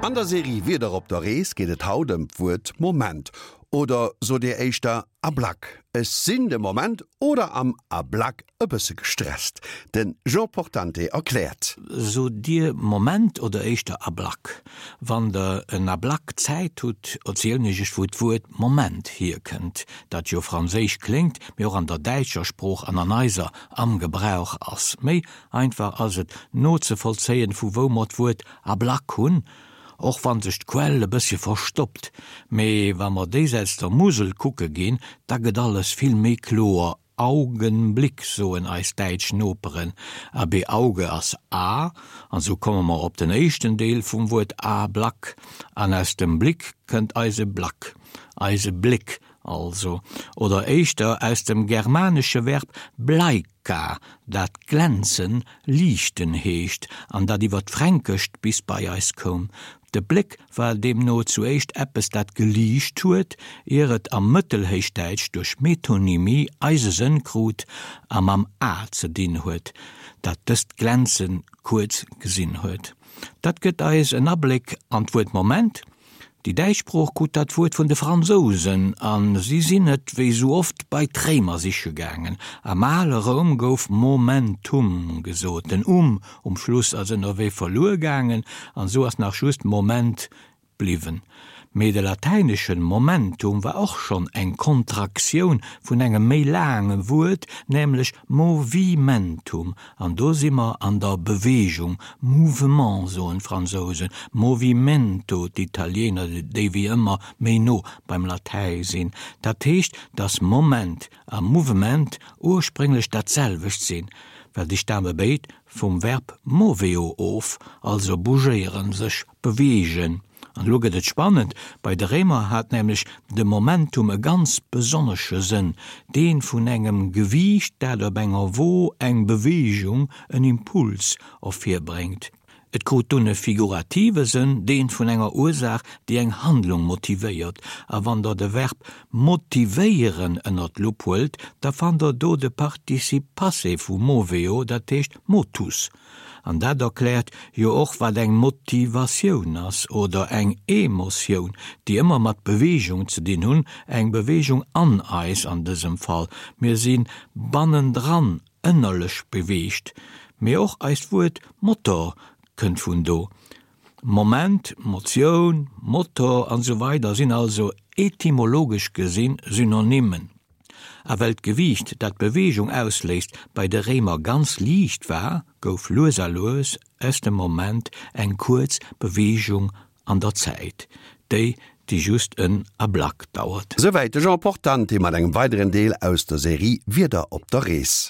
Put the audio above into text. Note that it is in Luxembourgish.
An der Serie Wieder op der Rees geet et haut ëm d'Wuert Moment. Oder sot Dir éischter Ablack? Ech sinn de Moment oder am Ablack e bësse gestresst. De Jean Portante erkläert. Sot Dir Moment oder éischter Ablack? Wann Der en Ablack Zäit hutt, erzielen ech Iech wou d'Wuert Moment hierkënnt, dat jo franséisch kléngt, mee och an der däitscher Sprooch an an eiser am Gebrauch ass. Méi einfach ass et nozevollzéien, vu wou mer d'Wuert Ablack hunn, och wann sech d'Quell e bëssche verstoppt. Mee wa mer déisäits der Musel kucke ginn, da gëtt alles vill méi kloer, Augenblick soen eis däitsch Noperen, abee Auge ass A, an sou komme mer op den éischten Deel vum Wuert Ablack, an aus dem Blick kënnt eise Black, eise Bléck also, oder éischter aus dem germanesche Verb bleika, dat glänzen, liichten heescht an dat iwwer d'Fränkescht bis bei eis koum. De Bléck war deemno zu éischt eppes, dat geliicht huet, ier et am Mëttelhéichdäitsch duerch Metonymie eise Sënn krut a mam A ze dinn huet, dat dëst Glänze kuerz gesinn huet. Dat gëtt eis en Abléck an d'Wuert Moment. Déi däitsch Sprooch krut dat Wuert vun de Fransousen a si sinn et, wéi sou oft, bei d'Réimer siche gaangen. Am ale Roum gouf Momentum gesot. Den um um Schluss ass ënnerwee verluer gaangen an esou ass nach just Moment bliwwen. Mee de latäineschen momentum war och schonn eng Kontraktioun vun engem méi laange Wuert, nämlech movimentum, An do si mer an der Bewegung, Mouvement soen d'Fransousen, movimento d'Italiener, déi wéi ëmmer méi no beim Latäi sinn. Dat heescht, datt Moment a Mouvement ursprénglech dat selwecht sinn, well déi stame béid vum Verb moveo of, also bougéieren, sech beweegen. An elo gëtt et spannend, Bei de Réimer hat nämlech de Momentum e ganz besonnesche Sënn, dee vun engem Gewiicht, dat op enger Wo eng Beweegung, en Impuls, ervirbréngt. Et krut dunn e figurative Sënn, dee vun enger Ursaach, déi eng Handlung motivéiert. A wann der de Verb motivéieren ënner d'Lupp huelt, da fannt der do de Participe passé vu moveo, dat heescht motus. An dat erkläert jo och, wat eng Motivatioun ass oder eng Emotioun, déi ëmmer mat Beweegung ze dinn hunn, eng Beweegung an eis an dësem Fall. Mir si bannendran ënnerlech beweegt. Mee och eist Wuert Motor kënnt vun do. Moment, Motioun, Motor an esou weider sinn also etymologesch gesinn Synonymen. A well d'Gewiicht, dat d'Beweegung ausléist, bei de Réimer ganz liicht war, gouf lues a lues aus dem Moment eng kuerz Beweegung an der Zäit, déi, déi just en Ablack dauert. Souwäit de Jean Portante mat engem weideren Deel aus der Serie Wieder op der Rees.